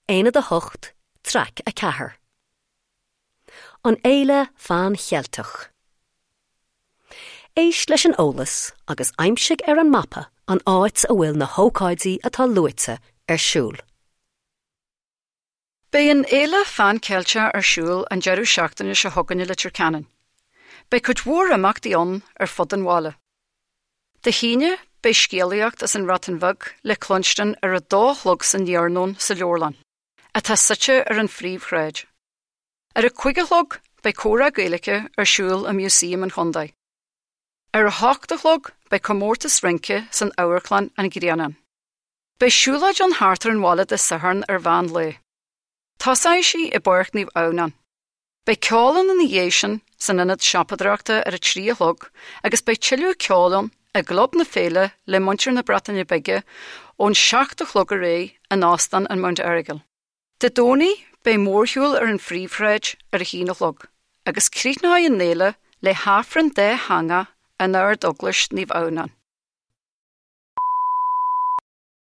Aonad 8, Traic 4. An Fhéile Phan Cheilteach. Éist leis an eolas agus aimsigh ar an mapa an áit a bhfuil na hócáidí atá luaite ar siúl. Beidh an Fhéile Phan Cheilteach ar siúl an deireadh seachtaine seo chugainn i Leitir Ceanainn. Beidh cuid mhór imeachtaí ann ar fud an bhaile. Dé hAoine, beidh scéalaíocht as an mBreatain Bheag le cluinstin ar a dó a chlog san iarnóin sa leabharlann, atá suite ar an phríomhshráid. Ar a cúig a chlog, beidh comhrá Gaeilge ar siúl i Músaem an Chontae. Ar a hocht a chlog, beidh comórtas rince san Amharclann An Grianán. Beidh siúlóid ann thart ar an bhaile Dé Sathairn ar mheán lae. Tosóidh sí i bPáirc Naomh Adhamhnán. Beidh ceol ann ina dhiaidh sin san ionad siopadóireachta ar a 3 a chlog agus beidh tuilleadh ceoil ann i gClub na Féile le muintir na Breataine Bige ón 7 a chlog ar aghaidh in Óstán an Mount Errigal. Dé Domhnaigh beidh mórshiúl ar an phríomhshráid ar a haon a chlog agus críochnóidh an fhéile le hAifreann dátheangach in Ard-Eaglais Naomh Adhamhnán.